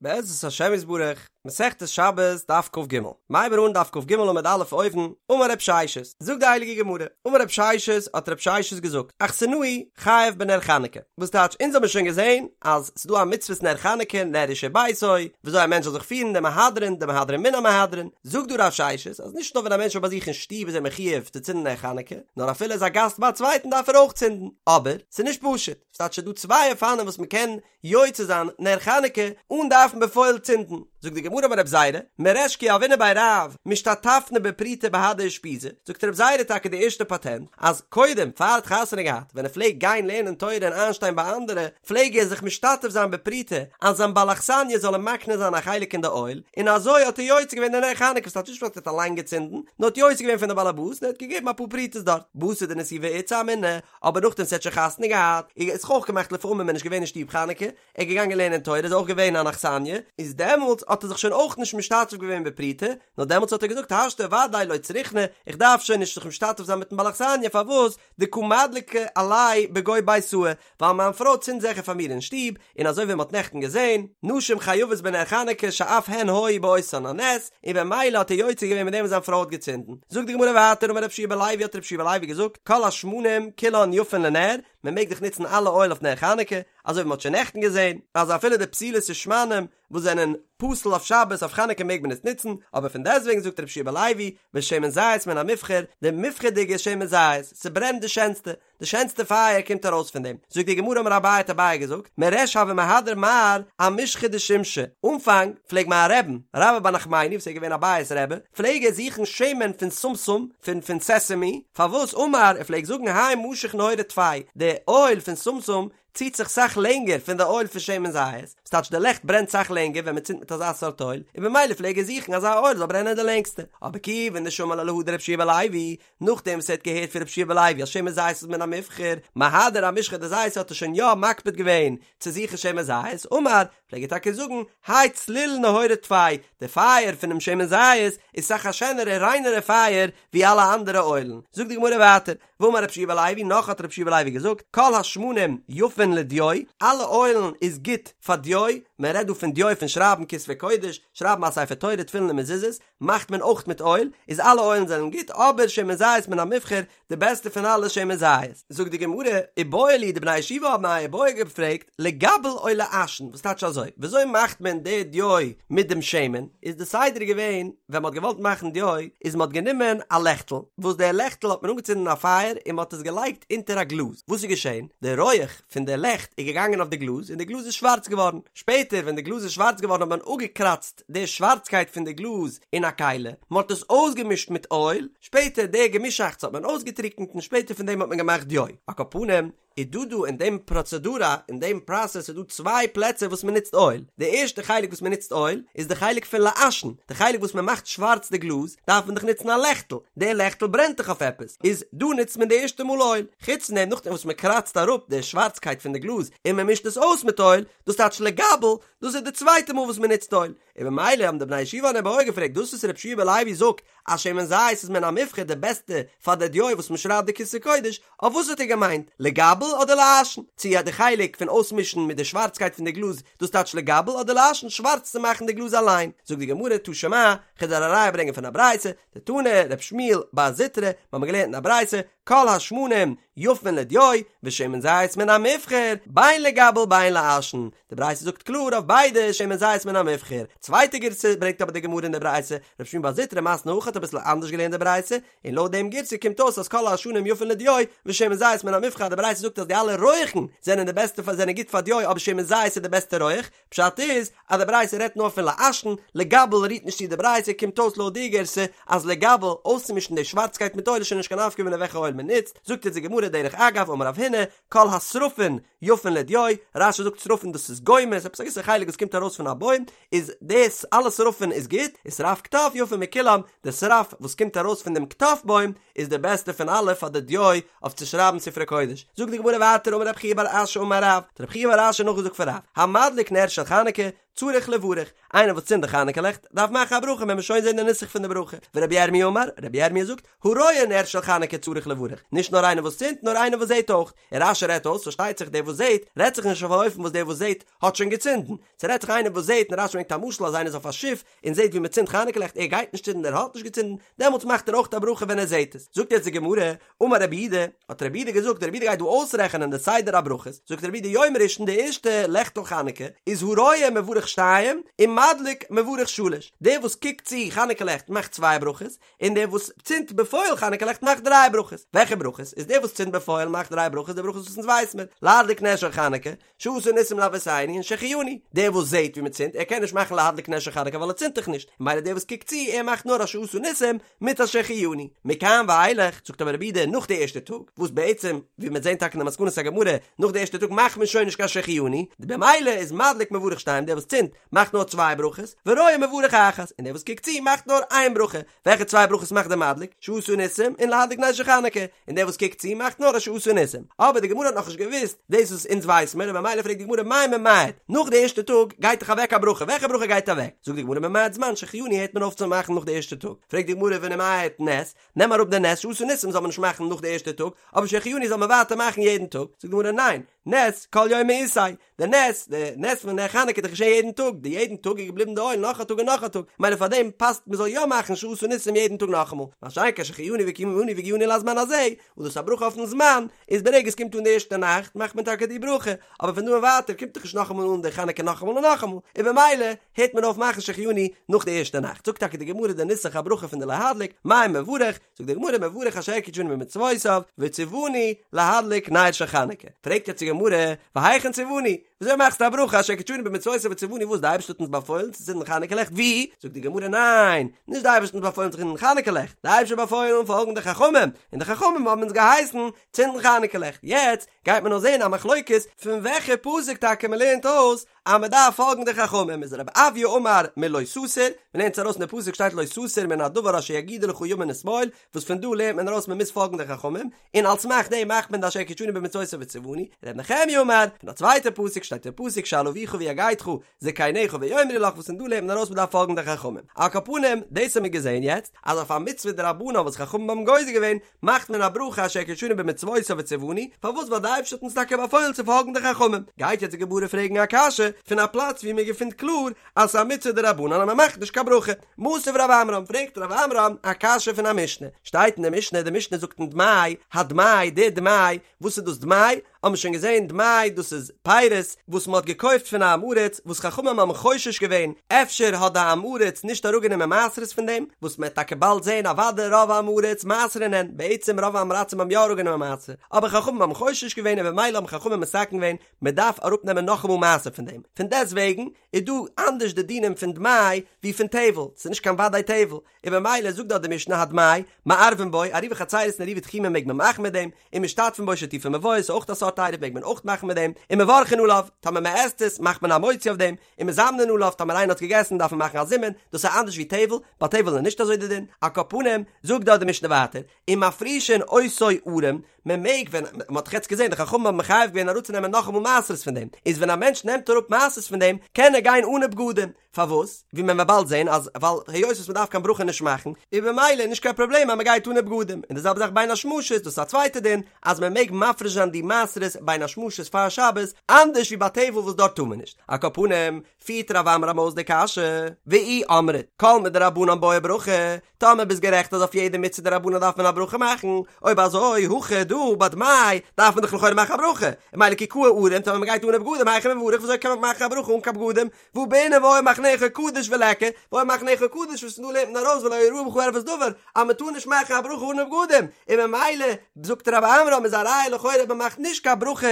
בעזרת השם יתברך, מסכת שבת, דף כג. מ'הייבן אן דף כג עמוד א' אויבן, אמר רב ששת, זאגט די הייליגע גמרא, אמר רב ששת, האט רב ששת געזאגט, אכסנאי חייב בנר חנוכה, וואס טייטש אונז האבן שוין געזען אז ס'דא א מצוות נר חנוכה, נר איש וביתו, וויאזוי א מענטש זאל זיך פירן, די מהדרין, די מהדרין מן המהדרין, זאגט דא רב ששת, אז נישט נאר ווען א מענטש איז ביי זיך אין שטוב איז ער מחויב צו צינדן נר חנוכה, נאר אפילו ער איז א גאסט ביי א צווייטן דארף ער אויך צינדן, אבער, ס'איז נישט פשוט, ס'טייטש ס'דא צוויי אופנים וואס מ'קען יוצא זיין נר חנוכה אן דארפן בפועל צינדן, זאגט די גמרא אמר רב זירא, מריש כי הוינא בי רב משתתפנא בפרוטה בהדי אושפיזא, זאגט רב זירא טאקע די ערשטע פאטענט, אז קודם פאר ער האט חתונה געהאט ווען ער פלעגט גיין לערנען תורה און איינשטיין ביי אנדערע, פלעג ער זיך משתתף זיין בפרוטה אז זיין בעל אכסניא זאל אים מקנה זיין א חלק אין די אויל, און אזוי האט ער יוצא געווען די נר חנוכה, וואס טייטש נישט אז ער האט אליין געצינדן, נאר האט יוצא געווען פון די בעל הבית און ער האט געגעבן אפאר פרוטות דארט, בתר דנסיבה איתתא אמינא, אבער נאכדעם וואס ער האט שוין חתונה געהאט, איז זיך אויך געמאכט לפעמים מען איז נישט געווען אין שטוב חנוכה, ער איז געגאנגען לערנען תורה איז אויך געווען אן אכסניא, איז דעמאלטס האט ער זיך שוין אויך נישט משתתף געווען בפרוטה, נאר דעמאלטס האט ער געזאגט השתא ודאי לא צריכנא, איך דארף שוין נישט זיך משתתף זיין מיטן בעל אכסניא, פארוואס? דקא מדליקא עילאי בגו ביתאי, ווייל מיין פרוי צינדט זיכער פאר מיר אין שטוב, און אזוי ווי מען האט נעכטן געזען, נשים חייבות בנר חנוכה שאף הן היו באותן הנס, און במילא האט ער יוצא געווען מיט דעם וואס זיין פרוי האט געצינדן. זאגט די גמרא ווייטער אמר רב יהושע בן לוי האט רב יהושע בן לוי געזאגט כל השמנים כולן יפין לנר, מען מעג דאך נוצן אלע אויל אויף נר חנוכה, אזוי ווי מען האט שוין נעכטן געזען אז אפילו די פתילות ושמנים וואס זענען פסול אויף שבת אויף חנוכה מעג מען עס נוצן, אבער פון דעסטוועגן זאגט רב יהושע בן לוי ושמן זית מן המובחר, די מובחר'דיגע שמן זית, ס'ברענט די שענסטע, די שענסטע פייער קומט ארויס פון דעם. זאגט די גמרא אמר אביי האט אביי געזאגט, מריש הוה מהדר מר אמשחא דשומשא, אנפאנג פלעג מיין רבי'ן, רבה בר נחמני וואס איז געווען אביי'ס רבי, פלעג ער זוכן שמן פון שומשום, פון פון סעסעמי, פארוואס אמר, ער פלעג זאגן האי משך נהורא טפי, די אויל פון שומשום ציט זיך סאך לענגער פון די אויל פון שמן זית, ס'טייטש די לעכט ברענט סאך לענגער ווען מ'צינדט מיט אזא סארט אויל, און במילא פלעג ער זוכן אזא אויל זאל ברענען די לענגסטע. אבער כיוון דשמע לה להא דרב יהושע בן לוי, נאכדעם וואס ער האט געהערט פון רב יהושע בן לוי אז שמן זית איז מן המובחר, מהדר אמשחא דזיתא האט ער שוין יא מקפיד געווען צו זוכן שמן זית, אמר, פלעג ער טאקע זאגן, האי צליל נהורא טפי, די פייער פונעם שמן זית איז סאך א שענערע ריינערע פייער ווי אלע אנדערע אוילן. זאגט די גמרא ווייטער, ואמר רב יהושע בן לוי, נאך האט רב יהושע בן לוי געזאגט, כל השמנים יפין לדיו, אלע אוילן איז גוט פאר דיו, מען רעדט דא פון דיו פון שרייבן כתבי קודש, שרייבן א ספר תורה, תפילין און מזוזות, מאכט מען אויך מיט אויל, איז אלע אוילן זענען גוט, אבער שמן זית מן המובחר, די בעסטע פון אלע שמן זית. זאגט די גמרא, איבעיא להו, די בני הישיבה האבן א איבעיא געפרעגט, לגבל או לעשן, וואס טייטש אזוי, וויאזוי מאכט מען די דיו מיט דעם שמן, איז די סדר געווען, ווען מען האט געוואלט מאכן דיו, איז מען האט גענומען א לעכטל, וואס די לעכטל האט מען אנגעצינדן א פייער און מען האט עס געלייגט אונטער א גלאז, וואס איז געשען, די רויעך פון די לעכט איז געגאנגען אויף די גלאז און די גלאז איז שווארץ געווארן, שפעטער ווען די גלאז איז שווארץ געווארן האט מען אפגעקראצט די שווארצקייט פון די גלאז אין א כלי, מען האט עס אויסגעמישט מיט אויל, שפעטער די געמישאכטס האט מען אויסגעטריקנט און שפעטער פון דעם האט מען געמאכט דיו. על כל פנים, איז דא דא אין דעם פראצעדורא, אין דעם פראסעס איז דא צוויי פלעצער וואס מען נוצט אויל, די ערשטע חלק וואס מען נוצט אויל איז די חלק פון לעשן, די חלק וואס מען מאכט שווארץ די גלאז, דארף מען דאך נוצן א לעכטל, די לעכטל ברענט דאך אויף עפעס, איז דא נוצט מען די ערשטע מאל אויל, חוץ פון דעם נאכדעם וואס מען קראצט אראפ די שווארצקייט פון די גלאז און מען מישט עס אויס מיט אויל, דאס טייטש לגבל, דאס איז די צווייטע מאל וואס מען נוצט אויל, און במילא האבן די בני ישיבה אן איבעיא געפרעגט דאס וואס רב יהושע בן לוי זאגט אז שמן זית איז מן המובחר די בעסטע פאר די דיו וואס מען שרייבט די כתבי קודש, אויף וואס האט ער געמיינט, לגבל אדער לעשן? צו די חלק פון אויסמישן מיט די שווארצקייט פון די גלאז דאס טייטש לגבל אדער לעשן שווארץ צו מאכן די גלאז אליין? זאגט די גמרא תא שמע, כ'וועל דיר א ראיה ברענגען פון א ברייתא, דתני רב שמואל בר זוטרא, מיר האבן געלערנט אין א ברייתא, כל השמנים יפין לדיו, ושמן זית מן המובחר, בין לגבל בין לעשן, די ברייתא זאגט קלאר אויף ביידע שמן זית מן המובחר, צווייטע גירסא ברענגט אבער די גמרא אין די ברייתא, רב שמואל בר זוטרא מתני הכי האט אביסל אנדערש געלערנט די ברייתא, און לויט דעם גירסא קומט אויס אז כל העשנים יפין לדיו, ושמן זית מן המובחר, די ברייתא זאגט אז די אלע רויעכן זענען די בעסטע פאר זענען גוט פאר דיו אבער שמן זית איז די בעסטע רויעך, פשט איז אז די ברייתא רעדט נאר פון לעשן, לגבל רירט נישט צו די ברייתא, קומט אויס לויט די גירסא אז לגבל, אויסצומישן די שווארצקייט מיט אויל איז שוין נישט קיין נפקא מינה וועלכע אויל מען נוצט, זאגט אונז די גמרא דרך אגב אמר רב הונא, כל השרפין יפין לדיו, רש"י זאגט שרפין דאס איז גומא, עפעס א געוויסע חלק וואס קומט ארויס פון א בוים, איז דאס אלע שרפין איז גוט, ושרף קטף יפה מכולם, די שרף וואס קומט ארויס פון דעם קטף בוים איז די בעסטע פון אלע פאר די דיו אויף צו שרייבן ספרי קודש. זאגט די גמרא ווייטער אמר רב חייא בר אשי אמר רב, האט רב חייא בר אשי נאכגעזאגט פון רב, המדליק נר של חנוכה. צריך לברך, איינער וואס צינדט די חנוכה לעכט דארף מאכן א ברכה, וועלן מיר שוין זען די נוסח פון די ברכה, ורבי ירמי' אמר, רבי ירמי' זאגט, הרואה נר של חנוכה צריך לברך, נישט נאר איינער וואס צינדט נאר איינער וואס זעט אויך, און רש"י רעדט אויס, פארשטייט זיך דער וואס זעט, רעדט זיך נישט אויף א אופן וואס דער וואס זעט האט שוין געצינדן, ס'רעדט זיך איינער וואס זעט, און רש"י ברענגט א משל אז איינער איז אויף א שיף און זעט ווי מ'צינדט חנוכה לעכט, ער גייט נישט צינדן ער האט נישט געצינדן, דעמאלטס מאכט ער אויך א ברכה ווען ער זעט עס. זאגט יעצט די גמרא, אמר רב יהודה, האט רב יהודה געזאגט, רב יהודה גייט דא אויסרעכענען די סדר הברכות, זאגט רב יהודה יום ראשון די ערשטע לעכטל חנוכה איז הרואה מברך שתיים ומדליק מברך שלש, דער וואס קוקט צו חנוכה לעכט מאכט צוויי ברכות, און דער וואס צינדט בפועל חנוכה לעכט מאכט דריי ברכות. וועלכע ברכות? איז דער וואס צינדט בפועל מאכט דריי ברכות, די ברכות וואס אונז ווייס מיר, להדליק נר של חנוכה, שעשה ניסים לאבותינו און שהחיינו. דער וואס זעט ווי מען צינדט, ער קען נישט מאכן להדליק נר של חנוכה ווייל ער צינדט דאך נישט, ממילא דער וואס קוקט צו, ער מאכט נאר א שעשה ניסים מיט א שהחיינו. מכאן ואילך, זאגט אבער רב יהודה, נאך די ערשטע טאג, וואס בעצם, ווי מ'וועט זען טאקע אין די מסקנת הגמרא, נאך די ערשטע טאג מאכט מען שוין נישט קיין שהחיינו, במילא איז מדליק מברך שתיים, דער וואס צינדט, מאכט נאר צוויי ברכות, ורואה מברך אחת, און דער וואס קוקט צו מאכט נאר איין ברכה, וועלכע צוויי ברכות מאכט דער מדליק? שעשה ניסים און להדליק נר של חנוכה, און דער וואס קוקט צו מאכט נאר א שעשה ניסים. אבער די גמרא האט נאכנישט געוואוסט דאס וואס אונז ווייס מיר, און ממילא פרעגט די גמרא מאי ממעט, נאך די ערשטע טאג גייט דאך אוועק א ברכה, וועלכע ברכה גייט אוועק? זאגט די גמרא ממעט זמן שהחיינו הערט מען אויף צו מאכן נאך די ערשטע טאג, פרעגט די גמרא ונימעט נס, נעם אראפ די נס שעשה ניסים זאל מען נישט מאכן נאך די ערשטע טאג, אבער שהחיינו זאל מען ווייטער מאכן יעדן טאג, זאגט די גמרא ניין, נס כל יומא איתיה, די נס, די נס פון נר חנוכה איז דאך געשען יעדן טאג, די יעדן טאג איז געבליבן די אויל נאך א טאג און נאך א טאג, מילא פאר דעם פאסט מען זאל יא מאכן שעשה ניסים יעדן טאג נאכאמאל, מה שאין כן שהחיינו וקיימנו והגיענו לזמן הזה, וואס דאס איז א ברכה אויפן זמן, איז ברגע עס קומט אן די ערשטע נאכט מאכט מען טאקע די ברכה, אבער פון דא און ווייטער קומט דאך נישט נאכאמאל אן די חנוכה נאכאמאל און נאכאמאל, און במילא הערט מען אויף מאכן שהחיינו נאך די ערשטע נאכט, זאגט טאקע די גמרא די נוסח הברכה פון די להדליק, מאי מברך, זאגט די גמרא מברך אשר קדשנו במצוותיו וציוונו להדליק נר של חנוכה, פרעגט יעצט די גמרא והיכן ציוונו, וויאזוי מאכסטו א ברכה אשר קדשנו במצוותיו וציוונו וואס די אייבערשטער האט אונז באפוילן צו צינדן חנוכה לעכט ווי? זאגט די גמרא ניין, נישט די אייבערשטער האט אונז באפוילן צו צינדן חנוכה לעכט, די אייבערשטער האט באפוילן פאלגן די חכמים, און די חכמים האבן אונז געהייסן צינדן חנוכה לעכט, יעצט גייט מען נאר זען א מחלוקת פון וועלכע פסוק טאקע מען לערנט אויס אז מען דארף פאלגן די חכמים איז רב אויא אמר מלא תסור, מען לערנט עס ארויס אין די פסוק שטייט לא תסור מן הדבר אשר יגידו לך ימין ושמאל, וואס פון דא לערנט מען ארויס מען מוז פאלגן די חכמים, און על סמך דעם מאכט מען די אשר קדשנו במצותיו וציוונו, ר' נחמיה אמר, פון א צווייטע פסוק שטייט אין פסוק שאל אביך ויגדך זקניך ויאמרו לך וואס פון דא לערנט מען ארויס מען דארף פאלגן די חכמים. על כל פנים, דאס האבן מיר געזען יעצט, אז אויף א מצוה דרבנן וואס חכמים האבן גוזר געווען, מאכט מען א ברכה אשר קדשנו במצוותיו וציוונו, פארוואס ווייל די אייבערשטער האט אונז טאקע באפוילן צו פאלגן די חכמים, גייט יעצט די גמרא פרעגן א קשיא פון א פלאץ ווי מען געפינט קלאר אז ס'איז א מצוה דרבנן אז מען מאכט נישט קיין ברכה, מתיב רב עמרם, פרעגט רב עמרם א קשיא פון א משנה, שטייט אין די משנה, די משנה זאגט אין דמאי, הדמאי, די דמאי, וואס איז דאס דמאי? האבן מיר שוין געזען דמאי דאס איז פירות וואס מען האט געקויפט פון א עם הארץ וואס חכמים האבן חושש געווען אפשר האט די עם הארץ נישט אראפגענומען מעשרות פון דעם וואס מען וועט טאקע באלד זען אוודאי רוב עם הארץ מעשרין הן בעצם רוב עם הארצים האבן יא אראפגענומען מעשר אבער חכמים האבן חושש געווען און במילא האבן חכמים מתקן געווען מען דארף אראפנעמען נאכאמאל מעשר פון דעם פון דעסטוועגן איז דא אנדערש די דינים פון דמאי ווי פון טבל ס'איז נישט קיין וודאי טבל און במילא זאגט דארט די משנה הדמאי, מערבין בו, עירובי חצירות און עירובי תחומין מעג מען מאכן מיט דעם, ומשתתפין בו שיתופי מבואות איז אויך א סארט עירוב מעג מען אויך מאכן מיט דעם, ומברכין עליו, טאמער מען עסט עס מאכט מען א מוציא אויף דעם, ומזמנין עליו, טאמער איינער האט געגעסן דארף מען מאכן א זימון, דאס איז אנדערש ווי טבל, ביי טבל איז נישט אזוי די דין, על כל פנים, זאגט דארט די משנה ווייטער, ומפרישין אותו ערום, מען מעג ווען, מען האט דאך יעצט געזען די חכמים האבן מחייב געווען אראפצונעמען נאכאמאל מעשרות פון דעם, איז ווען א מענטש נעמט אראפ מעשרות פון דעם, קען ער גיין אנע בגדים, פארוואס? ווי מען וועט באלד זען אז ווייל היות וואס מען דארף קיין ברכה נישט מאכן, איז במילא נישט קיין פראבלעם אז מען גייט אנע בגדים, און די זעלבע זאך בין השמשות, דאס איז א צווייטע דין, אז מען מעג מפריש זיין די מעשרות בין השמשות פאר שבת, אנדערש ווי ביי טבל וואס דארט טאר מען נישט. על כל פנים, פירט רב עמרם אויס די קשיא, ואי אמרת, כל מדרבנן בעי ברכה, טאמער ביסט גערעכט אז אויף יעדע מצוה דרבנן דארף מען א ברכה מאכן, אויב אזוי, הכא דא ביי דמאי דארף מען דאך לכאורה מאכן א ברכה, און ממילא כי קאי ערום, טאמער מען גייט אנע בגדים היכי מברך וויאזוי קען מען מאכן א ברכה אן קיין בגדים, והא בעינן והיה מחניך קדוש וליכא, והיה מחניך קדוש וואס פון דא לערנט מען ארויס ולא יראה בך ערות דבר, אז מען טאר נישט מאכן א ברכה אן בגדים, און ממילא זאגט רב עמרם איז א ראיה לכאורה אז מען מאכט נישט קיין ברכות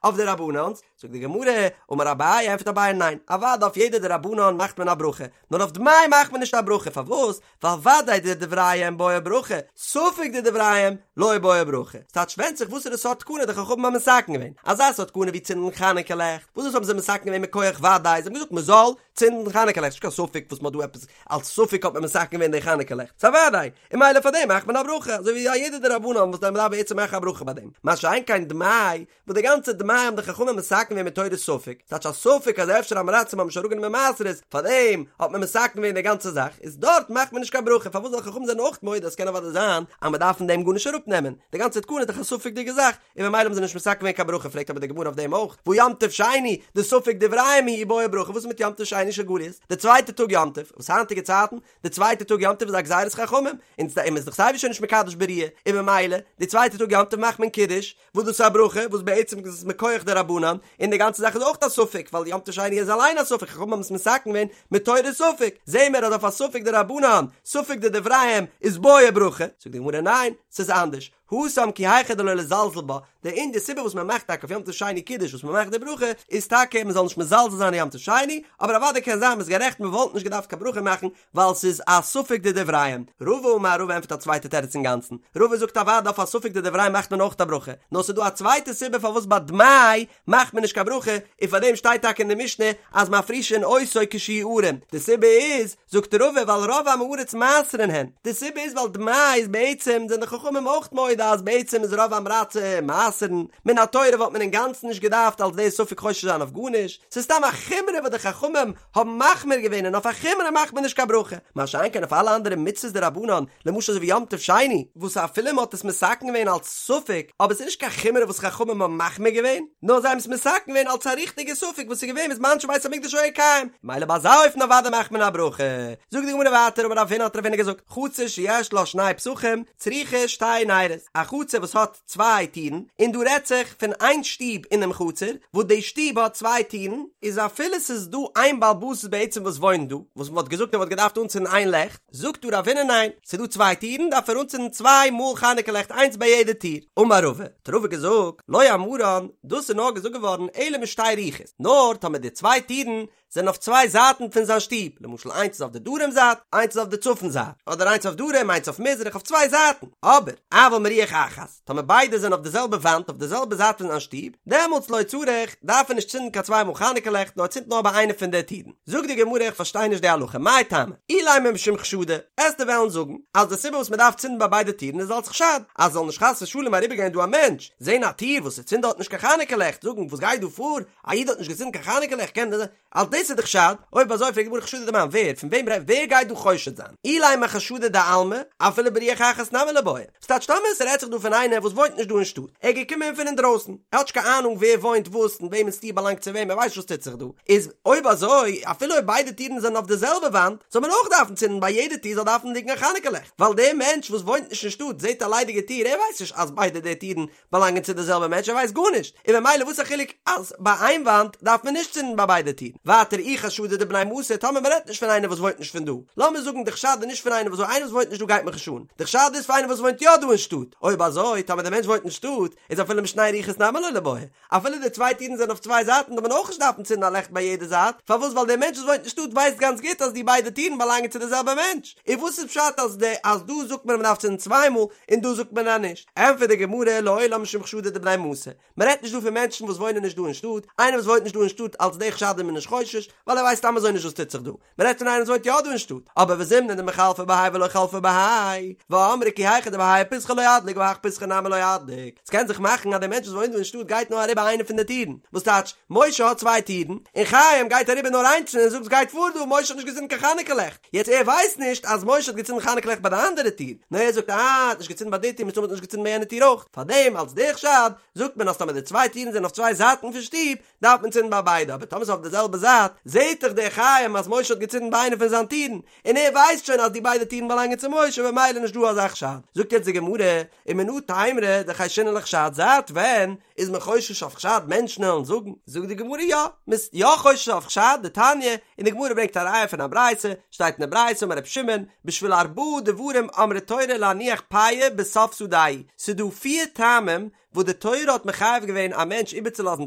אויף דרבנן'ס, זאגט די גמרא, אמר אביי, ענטפערט אביי ניין, אוודאי אויף יעדע דרבנן מאכט מען א ברכה, נאר אויף דמאי מאכט מען נישט א ברכה, פארוואס? ווייל ודאי דדבריהם בעי ברכה, ספק דדבריהם לא בעי ברכה. ס'טייטש ווענדט זיך וואסערע סארט תקנה די חכמים האבן מתקן געווען. אזא סארט תקנה ווי צינדן חנוכה לעכט, וואס דאס האבן זיי מתקן געווען מכח ודאי, זיי האבן געזאגט מ'זאל צינדן חנוכה לעכט, ס'נישט קיין ספק וואס מ'האט דא עפעס אלס ספק האט מען מתקן געווען די חנוכה לעכט, ס'איז א ודאי, און ממילא פאר דעם מאכט מען א ברכה, אזוי ווי א יעדע דרבנן וואס מ'דארף בעצם מאכן א ברכה ביי דעם. מה שאין כן דמאי. וואס די גאנצע דמאי האבן די חכמים מתקן געווען מתורת ספק, ס'טייטש א ספק אז אפשר עם הארצים האבן נישט אראפגענומען מעשרות, פארדעם האט מען מתקן געווען די גאנצע זאך, איז דארט מאכט מען נישט קיין ברכה, פארוואס ווייל חכמים זענען אויך מודה אז ס'קען אוודאי זיין אז מ'דארף פון דעם גארנישט אראפנעמען, די גאנצע תקנה איז דאך א ספק'דיגע זאך, און ממילא האבן זיי נישט מתקן געווען קיין ברכה, פרעגט אבער די גמרא אויף דעם אויך, והא יום טוב שני, דספק דבריהם הוא ובעי ברכה, וואס איז מיט יום טוב שני של גליות, די צווייטע טאג יום טוב, וואס היינטיגע צייטן, די צווייטע טאג יום טוב איז א גזירת חכמים, און מ'איז דאך סייווי שוין נישט מקדש בראיה, און ממילא, די צווייטע טאג יום טוב מאכט מען קידוש, וואס דאס איז א ברכה, וואס בעצם איז עס מכח דרבנן, און די גאנצע זאך איז אויך א ספק, ווייל יום טוב שני איז אליין א ספק, חכמים האבן עס מתקן געווען מתורת ספק, זעהן מיר אז אויף א ספק דרבנן, ספק דדבריהם, איז בעי ברכה, זאגט די גמרא ניין, ס'איז אנדערש, התם כי היכי דלא לזלזל בה, די און די סיבה וואס מען מאכט טאקע אויף יום טוב שני קידוש וואס מען מאכט די ברכה איז טאקע מען זאל נישט מזלזל זיין אין יום טוב שני, אבער אוודאי קען זיין מ'איז גערעכט מען וואלט נישט געדארפט קיין ברכה מאכן ווייל ס'איז א ספק דדבריהם. רבא אמר רבא ענטפערט א צווייטע תירוץ אינגאנצן, רבא זאגט אוודאי אויף א ספק דדבריהם מאכט מען אויך א ברכה, נאר ס'איז דא א צווייטע סיבה פארוואס ביי דמאי מאכט מען נישט קיין ברכה, און פארדעם שטייט טאקע אין די משנה אז מפרישין אותו כשהוא ערום, די סיבה איז, זאגט רבא ווייל רוב עמי הארץ מעשרין הן, די סיבה איז ווייל דמאי איז בעצם זענען די חכמים אויך מודה אז בעצם איז רוב עם הארצים מעשרין, מן התורה וואלט מען אינגאנצן נישט געדארפט אלס די ספק חושש זיין אויף גארנישט, ס'איז סתם א חומרא וואס די חכמים האבן מחמיר געווען און אויף א חומרא מאכט מען נישט קיין ברכה, מה שאין כן אויף אלע אנדערע מצוות דרבנן, למשל אזוי ווי יום טוב שני, וואס אפילו מען האט עס מתקן געווען אלס ספק, אבער ס'איז נישט קיין חומרא וואס חכמים האבן מחמיר געווען, נאר זיי האבן עס מתקן געווען אלס א ריכטיגע ספק וואס איז געווען בזמן שבית המקדש היה קיים, מילא ביי אזא אופן אוודאי מאכט מען א ברכה. זאגט די גמרא ווייטער אמר רב הונא האט רב הונא געזאגט, חצר שיש לה שני פתחים צריכה שתי נרות, א חצר וואס האט צוויי טירן, און דא רעדט זיך פון איין שטוב אינעם חצר, וואס די שטוב האט צוויי טירן, איז אפילו ס'איז דא איין בעל הבית בעצם וואס וואוינט דא, וואס מ'וואלט געזאגט ער וואלט געדארפט אנצינדן איין לעכט, זאגט דא רב הונא ניין, ס'איז דא צוויי טירן דארף ער אנצינדן צוויי מאל חנוכה לעכט איינס ביי יעדע טיר. אמר רבא, האט רבא געזאגט, לא אמרן, דאס איז נאר געזאגט געווארן אלא משתי רוחות, נאר טאמער די צוויי טירן זענען אויף צוויי זייטן פון זיין שטוב, למשל איינס איז אויף די דרום זייט, איינס איז אויף די צפון זייט, אדער איינס אויף דרום איינס אויף מזרח, אויף צוויי זייטן, אבער אבל מרוח אחת, טאמער ביידע זענען אויף די זעלבע וואנט אויף די זעלבע זייט פון זיין שטוב, דעמאלטס לא צריך, דארף ער נישט צינדן קיין צוויי מאל חנוכה לעכט, נאר ער צינדט נאר ביי איינע פון די טירן. זאגט די גמרא איך פארשטיי נישט די הלכה, מאי טעמא? אילימא משום חשדא, עסטו וועלן זאגן אז די סיבה וואס מען דארף צינדן ביי ביידע טירן איז אלס חשד, אז זאל נישט חס ושלום אריבערגיין דא א מענטש, זען א טיר וואס ס'צינדט דארט נישט קיין חנוכה לעכט, זאגן וואס גייט דא פאר, א איד האט נישט געצינדן קיין חנוכה לעכט קען דען אלס דאס איז די חשד, אויב אזוי פרעגט די גמרא חשדא דמאן ווער, פון וועם רעדט ווער גייט דא חושד זיין? אילימא חשדא דעלמא, אפילו ברוח אחת נמי ליבעי, ס'טייטש טאמער ס'רעדט זיך דא פון איינער וואס וואוינט נישט דא אין שטאט, ער איז געקומען פון אינדרויסן, ער האט נישט קיין אהנונג ווער וואוינט וואס און וועמענס טיר באלאנגט צו וועם, ער ווייסט נישט וואס טוט זיך דא, איז אויב אזוי אפילו אויב ביידע טירן זענען אויף די זעלבע וואנט, זאל מען אויך דארפן צינדן ביי יעדע טיר זאל דארפן ליגן א חנוכה לעכט, ווייל דער מענטש וואס וואוינט נישט אין שטאט זעט א ליידיגע טיר, ער ווייסט נישט אז ביידע די טירן באלאנגען צו די זעלבע מענטש ער ווייסט גארנישט, און ממילא וואס א חילוק אז ביי איין וואנט דארף מען נישט צינדן ביי ביידע טירן, ווייטער אי חשדא דבני מתא טאמער מען רעדט נישט פון איינער וואס וואוינט נישט פון דא, לאמיר זאגן די חשד איז נישט פון איינער וואס איינער וואס וואוינט נישט דא גייט מיך נישט אן, די חשד איז פון איינער וואס וואוינט יא דא אין שטאט, אויב אזוי טאמער די מענטש וואוינט אין שטאט איז אפילו משני רוחות נמי לא ליבעי, אפילו די צוויי טירן זענען אויף צוויי זייטן דארף מען אויך נישט דארפן צינדן א לעכט ביי יעדע זייט, פארוואס ווייל דער מענטש וואס וואוינט אין שטאט ווייסט גאנץ גוט אז די ביידע טירן באלאנגען צו די זעלבע מענטש, און וואס איז פשט אז די אז דא זאגט מען אז מען דארף צינדן צוויי מאל און דא זאגט מען אז נישט? ענטפערט די גמרא לעולם משום חשדא דבני מתא, מען רעדט נישט דא פון מענטשן וואס וואוינען נישט דא אין שטאט, איינער וואס וואוינט נישט דא אין שטאט אלס די חשד איז מען נישט חושש, ווייל ער ווייסט סתם אזוי נישט וואס טוט זיך דא, מען רעדט פון איינער וואס וואוינט יא דא אין שטאט, אבער וזימנין דמיחלפא בהאי ולא חלפא בהאי, ואמרי כי היכי דבהאי פיתחא לא אדליק בהך פיתחא נמי לא אדליק, ס'קען זיך מאכן אז דער מענטש וואס וואוינט דא אין שטאט גייט נאר אריבער איינע פון די טירן, וואס טייטש, משה האט צוויי טירן, און חיים גייט אריבער נאר איינס און ער זאגט ס'גייט פאר דא, משה האט נישט געצינדן קיין חנוכה לעכט, יעצט ער ווייסט נישט אז משה האט געצינדן חנוכה לעכט ביי די אנדערע טיר, נאר ער זאגט אה ער האט נישט געצינדן ביי די טיר מסתמא האט ער נישט געצינדן ביי יענע טיר אויך, פארדעם אלס די חשד זאגט מען אז טאמער די צוויי טירן זענען אויף צוויי זייטן פון שטוב דארף מען צינדן ביי ביידע, אבער טאמער ס'איז אויף די זעלבע זייט, זעהט דאך דער חיים אז משה האט געצינדן ביי איינע פון זיין טירן, און ער ווייסט שוין אז די ביידע טירן באלאנגען צו משה במילא נישט דא אזא חשד. זאגט יעצט די גמרא, ומנא תימרא דחיישינן לחשד, זייט ווען איז מען חושש אויף חשד מענטשן וועלן זאגן? זאגט די גמרא יא, מ'איז יא חושש אויף חשד, דתניא, און די גמרא ברענגט א ראיה פון א ברייתא, שטייט אין די ברייתא אמר רבי שמעון, בשביל ארבעה דברים אמרה תורה להניח פאה בסוף שדהו, ס'דא פיר טעמים וואס די תורה האט מחייב געווען א מענטש איבערצולאזן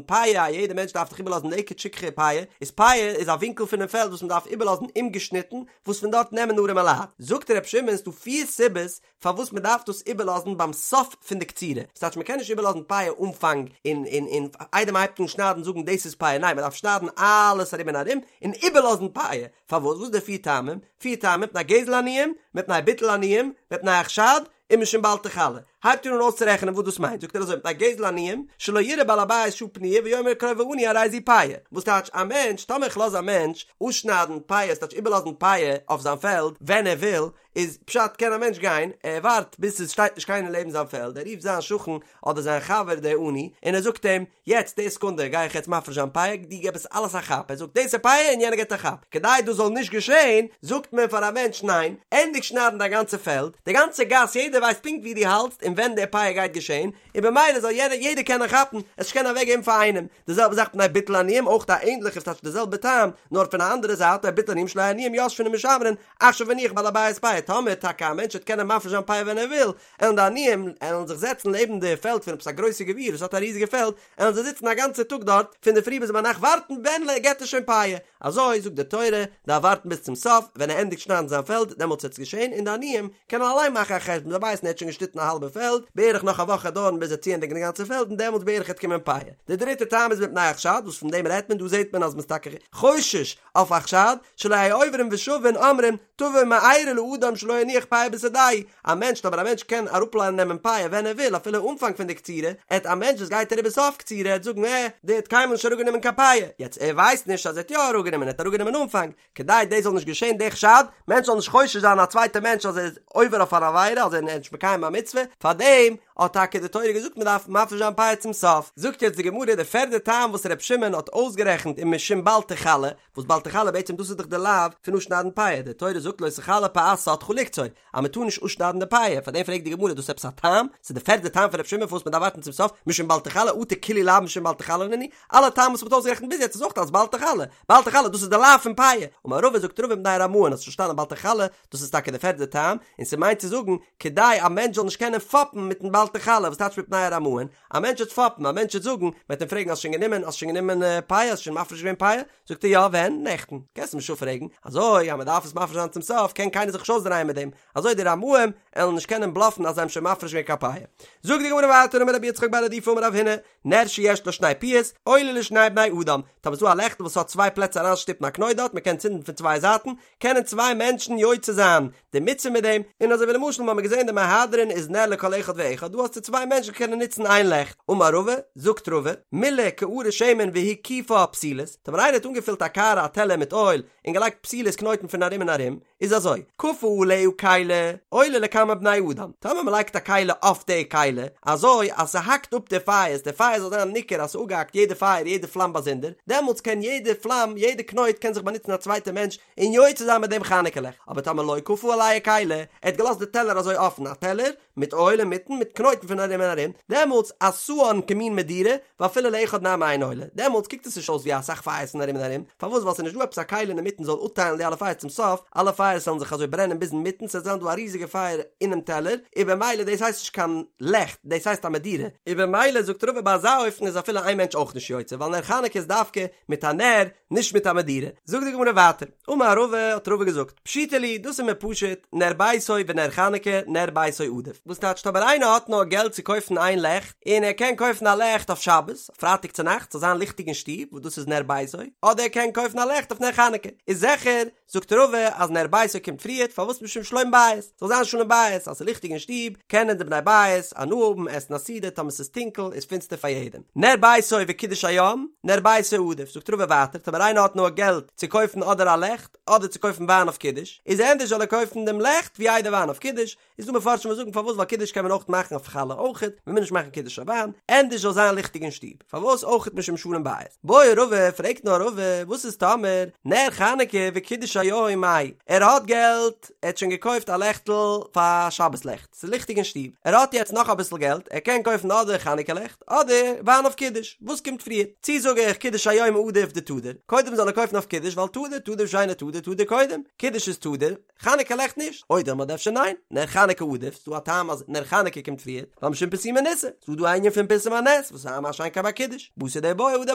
פאה, א יעדע מענטש דארף דאך איבערלאזן לקט שכחה פאה, איז פאה איז א ווינקל פונעם פעלד וואס מען דארף איבערלאזן אומגעשניטן, וואס פון דארט נעמען ארעמע לייט. זאגט ר' שמעון ס'דא פיר סיבות פארוואס מען דארף דאס איבערלאזן ביים סוף פון די קצירה, ס'טייטש מען קען נישט איבערלאזן פאה אנפאנג און און און איידער מען הייבט אן שניידן זאגן דאס איז פאה, ניין מען דארף שניידן אלעס ארום און ארום און איבערלאזן פאה, פארוואס? וואס איז די פיר טעמים? פיר טעמים, מפני גזל עניים, מפני ביטול עניים, מפני החשד, ומשום בל תכלה. הייבט ער אן אויסצורעכענען וואס דאס מיינט, זאגט ער אזוי מפני גזל עניים, שלא יראה בעל הבית שעה פנויה ויאמר קרוב העני הרי זו פאה, וואס טייטש א מענטש, טאמער איך לאז א מענטש אפשניידן פאה, ס'טייטש איבערלאזן פאה אויף זיין פעלד ווען ער וויל, איז פשט קען א מענטש גיין, ער ווארט ביז עס שטייט נישט קיינער לעבן זיין פעלד, ער רופט זיין שכן אדער זיין חבר דער עני און ער זאגט אים, יעצט די סעקונדע גיי איך יעצט מפריש זיין פאה, דו געב עס אלעס א כאפ, ער זאגט דאס איז פאה און יענער געבט א כאפ, כדי דאס זאל נישט געשען זאגט מען פאר א מענטש ניין, ענדיג שניידן דיין גאנצע פעלד, די גאנצע גאס יעדער ווייסט פונקט ווי דו האלטסט און ווען די פאה גייט געשען, און במילא זאל יענער יעדער קענען כאפן, עס נישט קענען אוועק געבן פאר איינעם, די זעלבע זאך מפני ביטול עניים אויך א ענדליכע ס'טייטש די זעלבע טעם נאר פון א אנדערע זייט מפני ביטול עניים שלא יהו עניים יושבין ומשמרין עכשיו הניח בעל הבית פאה טאמער טאקע א מענטש וועט קענען מפריש זיין פאה ווען ער וויל, עלן די עניים עלן זיך זעצן לעבן די פעלד פון עפעס א גרויסע גביר וואס האט א ריזיגע פעלד, עלן זיי זיצן א גאנצע טאג דארט פון די פרי ביז ביינאכט ווארטן ווען געט ער שוין פאה, אזוי זאגט די תורה, דארף ווארטן ביז צום סוף, ווען ער ענדיגט שניידן זיין פעלד דעמאלטס וועט עס געשען, און די עניים קענען אליין מאכן א חשבון, זיי ווייסן ער האט שוין געשניטן א האלבע פעלד, בערך נאך א וואך וועט דויערן ביז ער וועט צוענדיגן די גאנצע פעלד און דעמאלטס בערך וועט קומען פאה. די דריטע טעם איז מפני החשד, וואס פון דעם רעדט מען, דא זעט מען אז מ'איז טאקע חושש אויף א חשד, שלא יהו עוברים ושבין אומרים תבוא מארה לאדם שלא הניח פאה בשדהו, א מענטש אבער א מענטש קען אראפנעמען פאה ווען ער וויל אפילו אנפאנג פון די קצירה, עט א מענטש וואס גייט אריבער סוף קצירה עט זאגן עה דער האט קיינמאל נישט אראפגענומען קיין פאה, יעצט ער ווייסט נישט אז ער האט יא אראפגענומען ער האט אראפגענומען אנפאנג, כדי דאס זאל נישט געשען די חשד, מענטש זאל נישט חושש זיין א צווייטע מענטש אז ער איז עובר אויף אן עבירה אז ער איז נישט מקיים א מצוה, פארדעם האט טאקע די תורה געזאגט מען דארף מפריש זיין פאה צום סוף. זאגט יעצט די גמרא די פערדע טעם וואס ר' שמעון האט אויסגערעכנט און משום בל תכלה, וואס בל תכלה בעצם דאס איז דאך די לאו פון אפשניידן פאה, די תורה זאגט לא תכלה פאת שדך לקצור, אז מען טאר נישט אפשניידן די פאה, פארדעם פרעגט די גמרא דאס איז עפעס א טעם? ס'איז די פערדע טעם פון ר' שמעון פארוואס מען דארף ווארטן צום סוף, משום בל תכלה אטו כולהו לאוין משום בל תכלה נינהו, אלע טעמים וואס מען האט אויסגערעכנט ביז יעצט איז אויך אלס בל תכלה, בל תכלה דאס איז די לאו פון פאה, אמר רבא זאגט רבא מפני הרמאין האסט פארשטאנען בל תכלה דאס איז טאקע די פערדע טעם, און ס'מיינט צו זאגן כדי א מענטש זאל נישט קענען פאפן מיטן בל תכלה, וואס טייטש מפני הרמאין? א מענטש וועט פאפן, א מענטש וועט זאגן, מען וועט אים פרעגן האסט שוין גענומען, האסט שוין גענומען פאה, האסט שוין מפריש געווען פאה? זאגט ער יא, ווען? נעכטן. קענסט אים נישט אפפרעגן, אזוי אז מען דארף עס מפריש זיין צום סוף קען קיינער זיך נישט אויסדרייען מיט דעם, אזוי די רמאים עלן נישט קענען בלאפן אז זיי האבן שוין מפריש געווען קיין פאה. זאגט די גמרא ווייטער אמר רבי יצחק בר רדיפה אמר רב הונא, נר שיש לו שני פיות, עולה לשני בני אדם, טאמער איז דא א לעכטל וואס האט צוויי פלעצער אריינשטופן א קנויט דארט, מען קען צינדן פון צוויי זייטן, קענען צוויי מענטשן יוצא זיין די מצוה מיט דעם, און אזוי ווי למשל מ'האמיר געזען די מהדרין איז נר לכל אחד ואחד, דא האסטו צוויי מענטשן קענען נוצן איין לעכט, אמר רבא, זאגט רבא, מילא קערה שמן והקיפה פתילות, טאמער איינער האט אנגעפילט א קערה א טעלער מיט אויל און געלייגט פתילות קנויטן פון ארום און ארום, איז אזוי, כפה עליה כלי, עולה לכמה בני אדם, טאמער מ'לייגט א כלי אויף די כלי, אזוי אז ס'האקט אפ די פייערס, די פייער זאל זיין ניכר אז ס'אפגעהאקט יעדע פייער יעדע פלאם באזונדער, דעמאלטס קען יעדע פלאם יעדע קנויט קען זיך באנוצן א צווייטע מענטש און יוצא זיין מיט דעם חנוכה לעכט, אבער טאמער לא כפה עליה כלי, ער האט געלאזט די טעלער אזוי אפן, א טעלער מיט אויל אינמיטן מיט קנויטן פון ארום און ארום, דעמאלטס עשאן כמין מדורה, ואפילו לאחד נמי אין עולה, דעמאלטס קוקט עס נישט אויס ווי אסאך פייערס פון ארום און ארום, פארוואס ווייל ס'איז נישט דא עפעס א כלי אינמיטן זאל אפטיילן די אלע פייערס צום סוף, אלע פייערס וועלן זיך אזוי ברענען ביז אינמיטן ס'וועט זיין דא א ריזיגע פייער אינעם טעלער, און במילא דאס הייסט נישט קיין לעכט, דאס הייסט א מדורה, און במילא זאגט רבא ביי אזא אופן איז אפילו איין מענטש אויך נישט יוצא, ווייל נר חנוכה איז דווקא מיט א נר, נישט מיט א מדורה. זאגט די גמרא ווייטער, אמר רבא, האט רבא געזאגט, פשיטא לי, דאס איז מיר פשוט, נר ביתו ונר חנוכה, נר ביתו עדיף. וואס טייטשט אויב איינער האט נאר געלט צו קויפן איין לעכט, און ער קען קויפן א לעכט אויף שבת, פרייטאג צו נאכטס, זאל זיין ליכטיג אין שטוב, וואס דאס איז נר ביתו, אדער ער קען קויפן א לעכט אויף נר חנוכה, איז זיכער, זאגט רבא אז נר ביתו קומט פריערט, פארוואס משום שלום בית, זאל זיין שלום בית, אז ס'איז ליכטיג אין שטוב, קענען די בני בית הנאה האבן, עסן א סעודה, טאמער ס'איז טונקל איז פינסטער פאר יעדעם. נר ביתו וקידוש היום, נר ביתו עדיף, זאגט רבא ווייטער, טאמער איינער האט נאר געלט צו קויפן אדער א לעכט, אדער צו קויפן וויין אויף קידוש, איז ענדערש זאל ער קויפן דעם לעכט ווי איידער וויין אויף קידוש, איז דא מפרשים וואס זאגן פארוואס ווייל קידוש קען מען אויך מאכן אויף חלה אויכעט, מען מוז נישט מאכן קידוש אויף וויין, ענדערש זאל זיין ליכטיג אין שטוב, פארוואס אויכעט משום שלום בית. בעי רבא, פרעגט נאר רבא, וואס איז טאמער נר חנוכה וקידוש היום מאי, ער האט געלט, ער האט שוין געקויפט א לעכטל פאר שבת לעכט, ס'איז ליכטיג אין שטוב, ער האט יעצט נאך אביסל געלט, ער קען קויפן אדער חנוכה לעכט, אדער וויין אויף קידוש, וואס קומט פריער? צי זאג איך קידוש היום עדיף דתדיר, קודם זאל ער קויפן אויף קידוש ווייל תדיר, תדיר ושאינו תדיר, תדיר קודם, קידוש איז תדיר, חנוכה לעכט נישט, או דילמא אדער אפשר ניין, נר חנוכה עדיף, ס'דא א טעם אז נר חנוכה קומט פריער, ווייל משום פרסומי ניסא, ס'דא דא א ענין פון פרסום הנס, וואס איז מה שאין כן ביי קידוש, בתר דבעיא הדר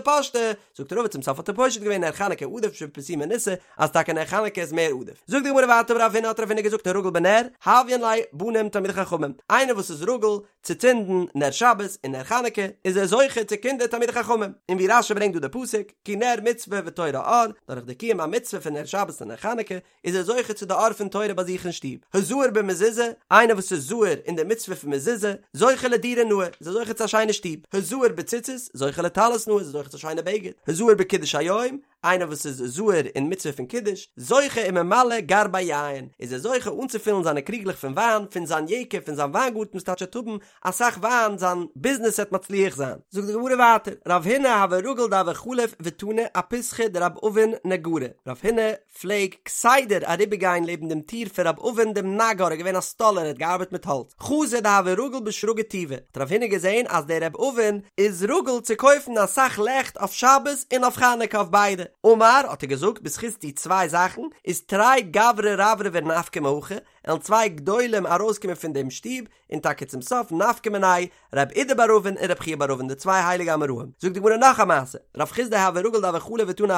פשטה, זאגט רבא צום סוף האט ער פושט געווען נר חנוכה עדיף משום פרסומי ניסא, אז טאקע נר חנוכה. חנוכה איז מער עדיף. זאגט די גמרא ווייטער אמר רב הונא האט רב הונא געזאגט הרגיל בנר, הויין ליה בנים תלמידי חכמים, איינער וואס איז רגיל צו צינדן נר שבת און נר חנוכה איז ער זוכה צו קינדער תלמידי חכמים, און ווי רש"י ברענגט דא די פסוק, כי נר מצוה ותורה אור, דורך די קיום המצוה פון נר שבת און נר חנוכה איז ער זוכה צו די אור פון תורה ביי זיך אין שטוב. הזהיר במזוזה, איינער וואס איז זהיר אין די מצוה פון מזוזה, זוכה לדירה נאה, איז ער זוכה צו א שיינע שטוב. הזהיר בציצית, זוכה לטלית נאה, איז ער זוכה צו א שיינע בגד. הזהיר בקידוש היום, איינער וואס איז זהיר אין מצוה פון קידוש, זוכה וממלא גרבי יין, איז ער זוכה אנצופילן זיינע קריגלעך פון וויין, פון זיין יקב, פון זיין וויינגארטן וואס טייטש ער וועט האבן אסאך וויין, זיין ביזנעס וועט מצליח זיין. זאגט די גמרא ווייטער, רב הונא הוה רגיל דהוה חליף ותני אפיתחא דרב אבין נגרא, רב הונא פלעג כסדר אריבערגיין לעבן דעם טיר פון רב אבין דעם נגר, ער איז געווען א סטאלער, ער האט געארבעט מיט האלץ, חזא דהוה רגיל בשרגא טובא, האט רב הונא געזען אז דער רב אבין איז רגיל צו קויפן אסאך לעכט אויף שבת און אויף חנוכה אויף ביידע, אמר, האט ער געזאגט, בזכות די צוויי זאכן איז תרי גברי רברבי נפקי מהכא, עלן צוויי גדולים ארויסקומען פון דעם שטוב, און טאקע צום סוף נפקא מינייהו רב אידי בר אבין און רב חייא בר אבין די צוויי הייליגע אמוראים. זאגט די גמרא נאך א מעשה, רב חסדא הוה רגיל דהוה חליף ותני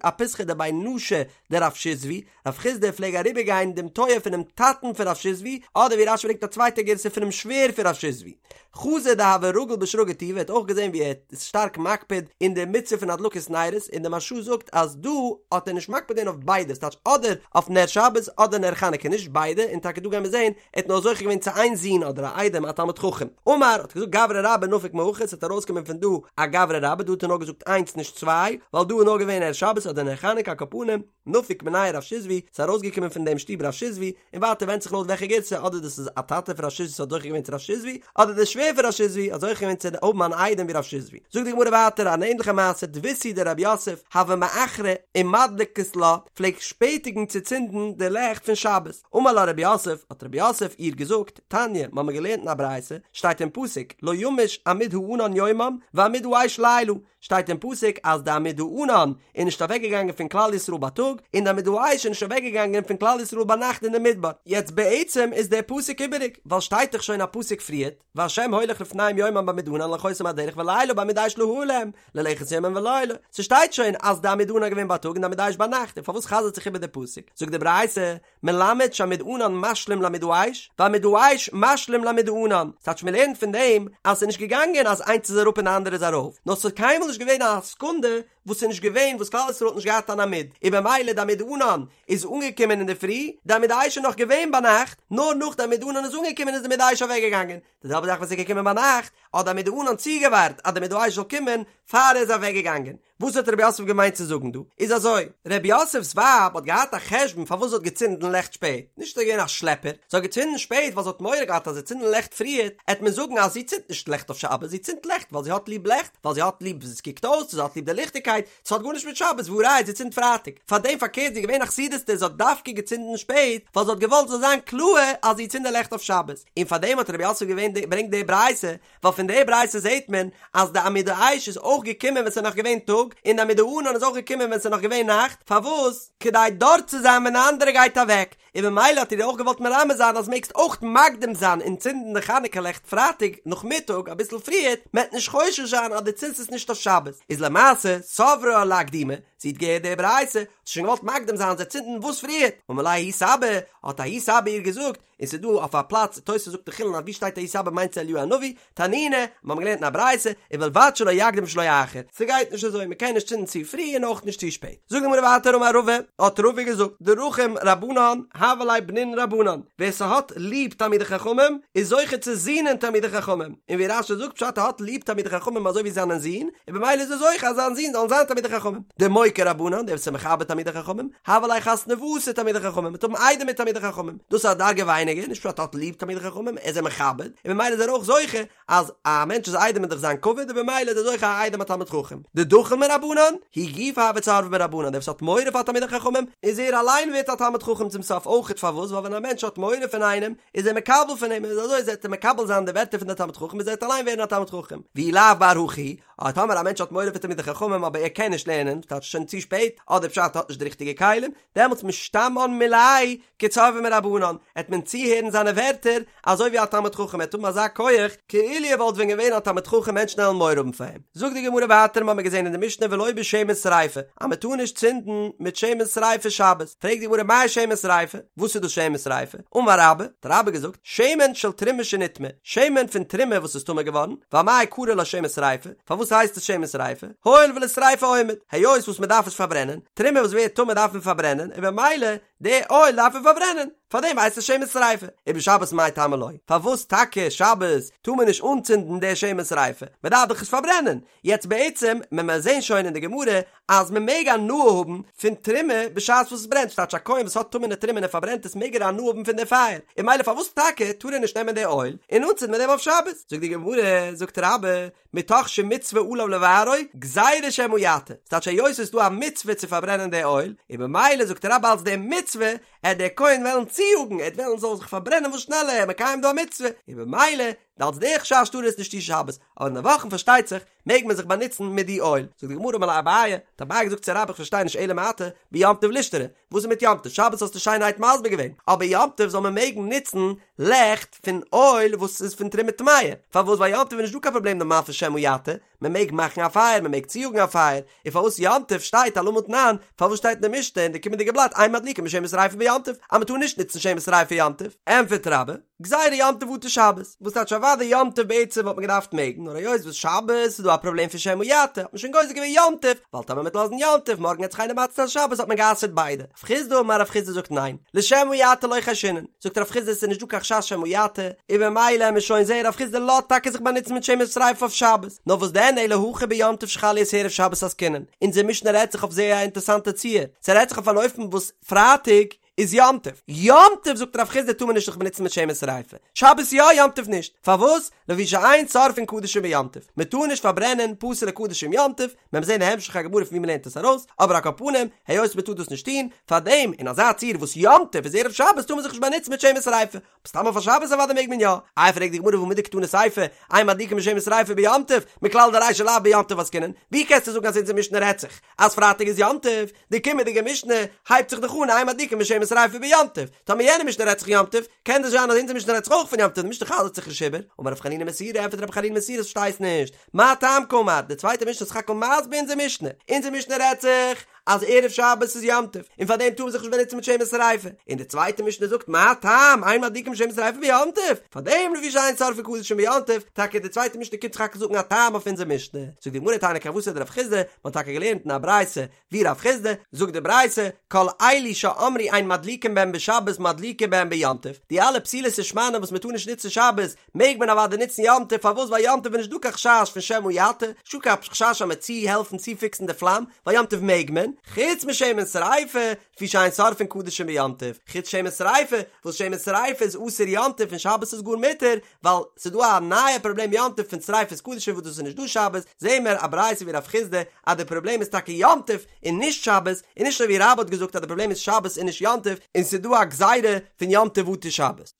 אפיתחא דבי נשא דרב שיזבי, רב חסדא פלעג אריבער גיין דעם טויער פונעם טאטן פון רב שיזבי, אדער ווי רש"י ברענגט א צווייטע גירסא פונעם שווער פון רב שיזבי. חזא דהוה רגיל בשרגא טובא האט אויך געזען ווי ער איז שטארק מקפיד אין די מצוה פון הדלקת נרות, און די מהרש"א זאגט אז דא האט ער נישט מקפיד געווען אויף ביידע, ס'טייטש אדער אויף נר שבת אדער נר חנוכה נישט ביידע, און טאקע דא גייען מיר זען ער האט נאר זוכה געווען צו איין זון אדער א איידעם א תלמיד חכם. אמר, האט געזאגט גברא רבה נפיק מהכא, ס'וועט ארויסקומען פון דא א גברא רבה, דא האט ער נאר געזאגט איינס נישט צוויי, ווייל דא איז נאר געווען נר שבת אדער נר חנוכה על כל פנים, נפיק מינייהו רב שיזבי, ס'איז ארויסגעקומען פון דעם שטוב רב שיזבי, און ווייטער ווענדט זיך לויט וועלכע גירסא, אדער דאס איז א טאטע פון רב שיזבי וואס האט זוכה געווען צו רב שיזבי, אדער דער שווער פון רב שיזבי האט זוכה געווען צו האבן אן איידעם ווי רב שיזבי. זאגט די גמרא ווייטער אן ענדליכע מעשה, דביתהו דרב יוסף, הוה מאחרה ומדלקת לה, פלעגט שפעטיגן צו צינדן די לעכט פון שבת. אמר לה רב יוסף, האט רב יוסף איר געזאגט, תניא, מ'האמיר געלערנט אין א ברייתא, שטייט אין פסוק, לא ימוש עמוד הענן יומם ועמוד האש לילה, שטייט אין פסוק אז די עמוד הענן איז נישט אוועקגעגאנגען פון כלל ישראל בייטאג, און די עמוד האש איז נישט אוועקגעגאנגען פון כלל ישראל ביינאכט אין די מדבר. יעצט בעצם איז דער פסוק איבעריג, ווייל שטייט דאך שוין א פסוק פריערט, והשם הולך לפניהם יומם בעמוד ענן להנחותם בדרך ולילה בעמוד אש להאיר להם, ללכת יומם ולילה. ס'שטייט שוין אז די עמוד ענן איז געווען בייטאג און די עמוד האש ביינאכט, און פארוואס חזר'ט זיך איבער די פסוק? זאגט די ברייתא, מלמד שעמוד ענן משלים לעמוד האש, ועמוד האש משלים לעמוד הענן. ס'טייטש מ'לערנט פון דעם אז ס'איז נישט געגאנגען אז איינס איז אראפ און די אנדערע איז ארויף, נאר ס'איז קיינמאל נישט געווען א סעקונדע וואס ס'איז נישט געווען וואס כלל ישראל האט נישט געהאט אן עמוד, און במילא די עמוד ענן איז אנגעקומען אינדערפרי, די עמוד האש איז נאך געווען ביינאכט, נאר נאך די עמוד ענן איז אנגעקומען איז די עמוד האש אוועקגעגאנגען, די זעלבע זאך ווען ס'איז געקומען ביינאכט, האט די עמוד הענן צוגעווארט אז די עמוד האש זאל קומען פאר ער איז אוועקגעגאנגען. וואס האט רב יוסף געמיינט צו זאגן דא? איז אזוי, רב יוסף'ס ווייב האט געהאט א חשבון פארוואס זי האט געצינדן לעכט שפעט, נישט זי איז געווען א שלעפער, זי האט געצינדן שפעט ווייל זי האט מורא געהאט אז זי צינדן לעכט פריער, עט מען זאגן אז זי צינדט נישט לעכט אויף שבת, זי צינדט לעכט ווייל זי האט ליב לעכט, ווייל זי האט ליב ווי עס קוקט אויס, זי האט ליב די ליכטיגקייט, ס'האט גארנישט מיט שבת, והא ראיה זי צינדט פרייטאג, פארדעם פארקערט זי איז געווען א חסידות'טע זי האט דווקא געצינדן שפעט ווייל זי האט געוואלט ס'זאל זיין קלאהר אז זי צינדט די לעכט אויף שבת, און פארדעם האט רב יוסף געווען ברענגט די ברייתא, ווייל פון די ברייתא זעהט מען אז די עמוד האש איז אויך געקומען ווען ס'איז נאך געווען טאג, און די עמוד הענן איז אויך געקומען ווען ס'איז נאך געווען נאכט, פארוואס? כדי דארט צו זיין ווען די אנדערע גייט אוועק, און במילא האט ער איר אויך געוואלט מרמז זיין אז מעגסט אויך מקדים זיין און צינדן די חנוכה לעכט פרייטאג נאכמיטאג אביסל פריערט, מ'עט נישט חושש זיין אז דו צינדסט עס נישט אויף שבת, איז למעשה סברה לאקדומי, זי האט געהערט די ברייתא, האט זי שוין געוואלט מקדים זיין זיי צינדן וואס פריערט, אמר לה ההוא סבא, האט ההוא סבא איר געזאגט, און ס'איז דא אויף א פלאץ, תוס' זאגט אין חולין אז ווי שטייט ההוא סבא מיינט עס אליהו הנביא, תנינא, מיר האבן געלערנט אין א ברייתא, ובלבד שלא יקדים ושלא יאחר, ס'גייט נישט אזוי, מ'קען נישט צינדן צו פרי און אויך נישט צו שפעט. זאגט די גמרא ווייטער אמר רבא, האט רבא געזאגט, דרחים רבנן, הוו ליה בנין רבנן, ווער ס'האט ליב תלמידי חכמים, איז זוכה צו זינען תלמידי חכמים, און ווי רש"י זאגט פשט ער האט ליב תלמידי חכמים אזוי ווי זיינען זין, און במילא איז ער זוכה אז זיין זין זאלן זיין תלמידי חכמים. דמוקיר רבנן, דער וואס איז מכבד תלמידי חכמים, הוו ליה חתנוותא תלמידי חכמים, מ'וועט האבן איידעמער תלמידי חכמים, דאס איז א דרגה ווייניגער, נישט פשט ער האט ליב תלמידי חכמים, ער איז זיי מכבד, און במילא איז ער אויך זוכה אז א מענטש איז איידעם איז דאך זיין כבוד, און במילא איז ער זוכה א איידעם א תלמיד חכם. דדחיל מרבנן, הוא גופא הוי צורבא מרבנן, דער וואס האט מורא פאר תלמידי חכמים, איז ער אליין ווערט א תלמיד חכם צום סוף אויכעט, פארוואס? ווייל ווען א מענטש האט מורא פון איינעם, איז ער מקבל פון אים, און אזוי וועט ער מקבל זיין די ווערטער פון דער תלמיד חכם, איז ער וועט אליין ווערן א תלמיד חכם. ואי לאו בר הכי. אבער טאמער א מענטש האט מורא פון תלמידי חכמים אבער ער קען נישט לערנען, טייטש שוין צו שפעט, אדער פשט ער האט נישט די ריכטיגע כלים, דעמאלטס משתמען מיליה כצורבא מרבנן, עט מען צוהערן זיינע ווערטער אזוי ווי א תלמיד חכם, ער עט האבן אזא כח כאילו ער וואלט ווען געווען א תלמיד חכם מענטשן עלן מורא האבן פאר אים. זאגט די גמרא ווייטער מ'האמיר געזען אין די משנה ולא בשמן שריפה אז מ'טאר נישט צינדן מיט שמן שריפה שבת, פרעגט די גמרא מאי שמן שריפה, וואס איז דאס שמן שריפה? אמר רבה, האט רבה געזאגט, שמן של תרומה שנטמאה, שמן פון תרומה וואס איז טמא געווארן, ואמאי קרי לה שמן שריפה, פארוואס הייסט עס שמן שריפה? הואיל ולשריפה עומד, היות וואס מ'דארף עס פארברענען, תרומה וואס ווערט טמא דארף מען פארברענען, און במילא די אויל דארף מען פארברענען, פארדעם הייסט עס שמן שריפה. ובשבת מאי טעמא לא? פארוואס טאקע שבת טאר מען נישט אנצינדן די שמן שריפה? מען דארף דאך עס פארברענען. יעצט בעצם מען מען זעהן שוין אין די גמרא אז מען מעג הנאה האבן פון תרומה בשעת וואס עס ברענט, ס'טייטש א כהן וואס האט טמא'נע תרומה און ער פארברענט עס מעג ער הנאה האבן פון די פייער, און ממילא פארוואס טאקע טאר ער נישט נעמען די אויל און אנצינדן מיט דעם אויף שבת? זאגט די גמרא, זאגט רבה, מתוך שמצוה עליו לבערו, גזירה שמא יטה, ס'טייטש היות ס'איז דא א מצוה צו פארברענען די אויל, און במילא זאגט רבה אלס די מצוה, עט דער כהן וועלן צויאגן, ער עט וועלן ס'זאל זיך פארברענען וואס שנעלער, מקיים דא א מצוה, און במילא, אלס די חשש טאר ער עס נישט טון שבת, אבער אין די וואכן פארשטייט זיך, מעג מען זיך באנוצן מיט די אויל. זאגט די גמרא אמר ליה אביי, האט אביי געזאגט צו רבה איך פארשטיי נישט אלא מעתה, ביום טוב לישתרי, וואס איז מיט יום טוב? שבת האסטו שיינערהייט מסביר געווען, אבער יום טוב זאל מען מעגן נוצן לעכט פון אויל וואס איז פון תרומה טמאה, פארוואס ווייל יום טוב איז נישט דא קיין פראבלעם נארמאל פון שמא יטה, מען מעג מאכן א פייער, מען מעג צויאגן א פייער, און פארוואס יום טוב שטייט אלמה תנן, פארוואס שטייט אין די משנה אין די קומענדיגע בלאט אין מדליקין בשמן שריפה ביום טוב, אז מען טאר נישט נוצן שמן שריפה יום טוב? ענטפערט רבה, גזירה יום טוב אטו שבת, וואס טייטש אוודאי יום טוב בעצם וואלט מען געדארפט מעגן, נאר היות וואס שבת איז דא א פראבלעם פון שמא יטה, האט מען שוין גוזר געווען יום טוב, ווייל טאמער מ'וועט לאזן יום טוב מארגן וועט זיך איינער מתיר זיין שבת האט מען גע'אסר'ט ביידע. רב חסדא אמר רב חסדא זאגט ניין, לשמא יטה לא חיישינן, זאגט רב חסדא עס איז נישט דא קיין חשש שמא יטה, און במילא עמיר שוין זעהן רב חסדא לאזט טאקע זיך באנוצן מיט שמן שריפה אויף שבת, נאר וואס דען אלא הכא ביום טוב שחל להיות ערב שבת עסקינן, אונזער משנה רעדט זיך אויף זייער א אינטערסאנטע ציור, ס'רעדט זיך אויף אן אופן וואס פרייטאג איז יום טוב. יום טוב זאגט רב חסדא טאר מען נישט זיך באנוצן מיט שמן שריפה. שבת יא יום טוב נישט. פארוואס? לפי שאין שורפין קדשים ביום טוב. מען טאר נישט פארברענען פסול'ע קדשים יום טוב, מען וועט זען אין המשך הגמרא פון ווי מען לערנט עס ארויס, אבער על כל פנים, היות מען טאר דאס נישט טון, פארדעם אין אזא ציור וואס יום טוב איז ערב שבת טאר מען זיך נישט באנוצן מיט שמן שריפה. סתם אויף א שבת אוודאי מעג מען יא. איי פרעגט די גמרא והא מדקתני סיפא, אין מדליקין בשמן שריפה ביום טוב, מכלל דרישא לאו ביום טוב עסקינן, ווי קענסטו זאגן אז אונזער משנה רעדט זיך אז פרייטאג איז יום טוב, די קומענדיגע משנה הייבט זיך דאך אן אין מדליקין בשמן שריפה ביום טוב, טאמער יענע משנה רעדט זיך יום טוב, קען דאס זיין אז אונזער משנה רעדט זיך אויך פון יום טוב, די משנה חזר'ט זיך נישט איבער, אמר רב חנינא מסורא, ענטפערט רב חנינא מסורא פארשטייסט נישט, מה טעם קאמר, די צווייטע משנה איז סך הכל מסביר אונזער משנה, אונזער משנה רעדט זיך אז ערב שבת איז יום טוב, און פאר דעם טאר מען זיך נישט באנוצן מיט שמן שריפה, און די צווייטע משנה זאגט מה טעם אין מדליקין בשמן שריפה ביום טוב, פאר דעם לפי שאין שורפין קדשים ביום טוב, טאקע די צווייטע משנה קומט סך הכל זאגן א טעם אויף אונזער משנה, זאגט די גמרא תניא כוותיה דרב חסדא, מען האט טאקע געלערנט אין א ברייתא ווי רב חסדא, זאגט די ברייתא, כל אלו שאמרו אין מדליקין בהן בשבת מדליקין בהן ביום טוב, די אלע פתילות און שמנים וואס מען טאר נישט נוצן שבת, מעג מען אוודאי נוצן יום טוב, פארוואס ווייל יום טוב איז נישט דא קיין חשש פון שמא יטה, נישט דא קיין חשש אז מ'עט צוהעלפן צופיקסן די פלאם, ווייל יום טוב מעג מען, חוץ משמן שריפה, לפי שאין שורפין קדשים ביום טוב, חוץ שמן שריפה, וואס שמן שריפה איז אסור יום טוב און שבת איז גאר מותר, ווייל ס'איז דא א נייע פראבלעם יום טוב פון שריפת קדשים וואס דאס איז נישט דא שבת, זעהן מיר א ברייתא ווי רב חסדא אז די פראבלעם איז טאקע יום טוב און נישט שבת, און נישט אזוי ווי רבה האט געזאגט אז די פראבלעם איז שבת און נישט יום טוב, און ס'איז דא א גזירה פון יום טוב אטו שבת.